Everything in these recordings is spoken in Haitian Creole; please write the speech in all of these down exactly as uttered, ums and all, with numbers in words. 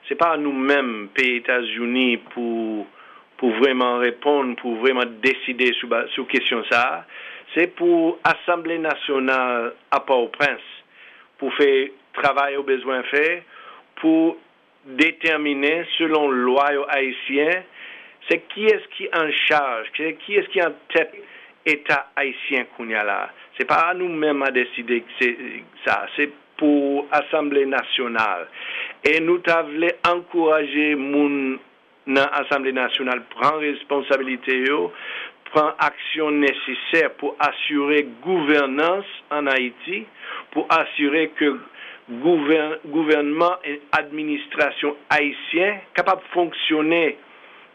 Se pa nou menm, peyi Etazini, pou, pou vrèman reponn, pou vrèman deside sou, ba- sou kesyon sa a. Se pou Asanble Nasyonal a Pòtoprens pou fè travay yo bezwen fè, pou detèmine, selon lwa yo ayisyen, se kiyès ki an chaj, se kiyès ki an tèt Eta ayisyen kounye a la. Se pa nou menm a deside se, sa, se pou Asanble Nasyonal. E nou ta vle ankouraje moun nan Asanble Nasyonal pran responsabilite yo, pran aksyon nesesè pou asire gouvènans ann Ayiti, pou asire ke gouvè- gouvènman e administrasyon ayisyen kapab fonksyone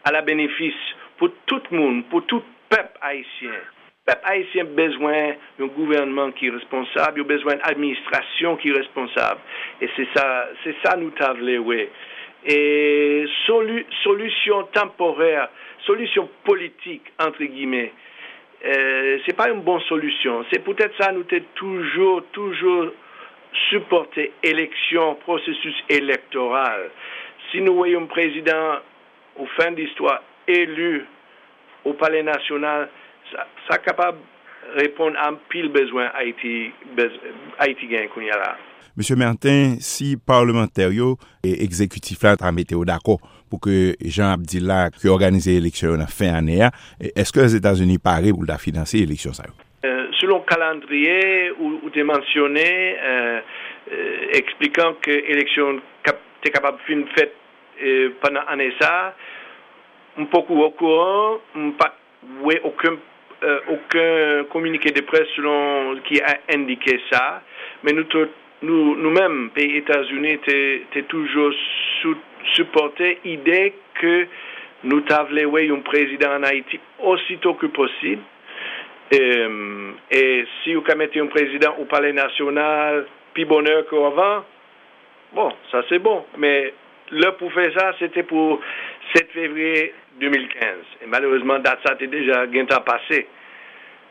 a la benefis pou tout moun, pou tout pèp ayisyen. Pèp ayisyen bezwen yon gouvènman ki responsab, yo bezwen yon administrasyon ki responsab. E se sa, se sa nou ta vle wè. E soli- solisyon tanporè, solisyon politik, antre gimè, e, se pa yon bon solisyon. Se poutèt sa nou te toujou, toujou sipòte eleksyon, pwosesis elektoral. Si nou wè yon prezidan, ou fen distwa, eli o Palè Nasyonal, sa, sa kapab reponn a anpil bezwen Ayiti, bez- Ayiti genyen kounye a la. Mesye Martin, si palmantè yo e egzekitif la ta mete yo dakò pou ke, jan ap di la, ke òganize eleksyon yo nan fen ane a, e- èske Lèzetazini pare pou l ta finanse eleksyon sa yo? Euh, selon kalandriye ou, ou te mansyone, euh, euh, eksplikan ke eleksyon kap- te kapab fin fèt, euh, pandan ane sa, m poko okouran, m pa t wè okenn, euh, okenn kominike de près selon ki a endike sa, men nou tout, nou, nou menm, peyi Etazini te, te toujou sou- sipòte ide ke nou ta vle wè yon prezidan ann Ayiti osito ke posib. E, e si yo ka mete yon prezidan o Palè Nasyonal pi bonè ke anvan, bon, sa se bon. Men lè pou fè sa, se te pou sèt fevriye de mil kenz. E malerezman, dat sa te deja gentan pase.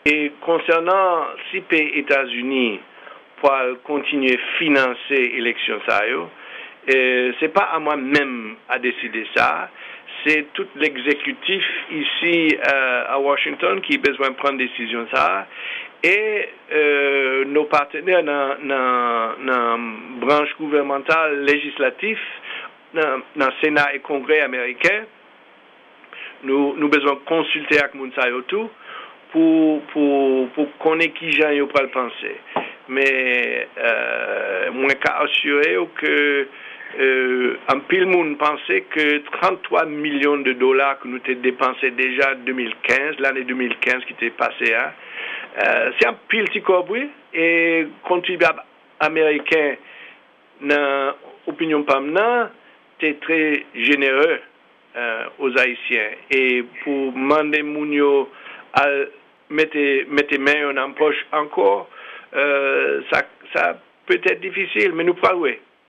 E konsènan si peyi Etazini pral kontinye finanse eleksyon sa yo, e, se pa a mwen menm a deside sa. Se tout legzekitif isi, euh, a Washington ki bezwen pran desizyon sa a. E, euh, nos partenaires nan, nan, nan branch gouvènmantal, lejislatif, nan, nan Sena e Kongrè ameriken, nou, nou bezwen konsilte ak moun sa yo tou pou, pou, pou konnen kijan yo pral panse. Men, euh, mwen ka asire w ke, euh, anpil moun panse ke tranntwa milyon de dola ke nou te depanse deja de mil kenz, lane de mil kenz ki te pase a, euh, se anpil ti kòb, wi, e kontribyab ameriken, nan opinyon pa m nan, te trè jenere, euh, aux Ayisyen. E pou mande moun yo al mete, mete men yo nan pòch ankò, euh, sa, sa petèt difisil, men nou pral wè.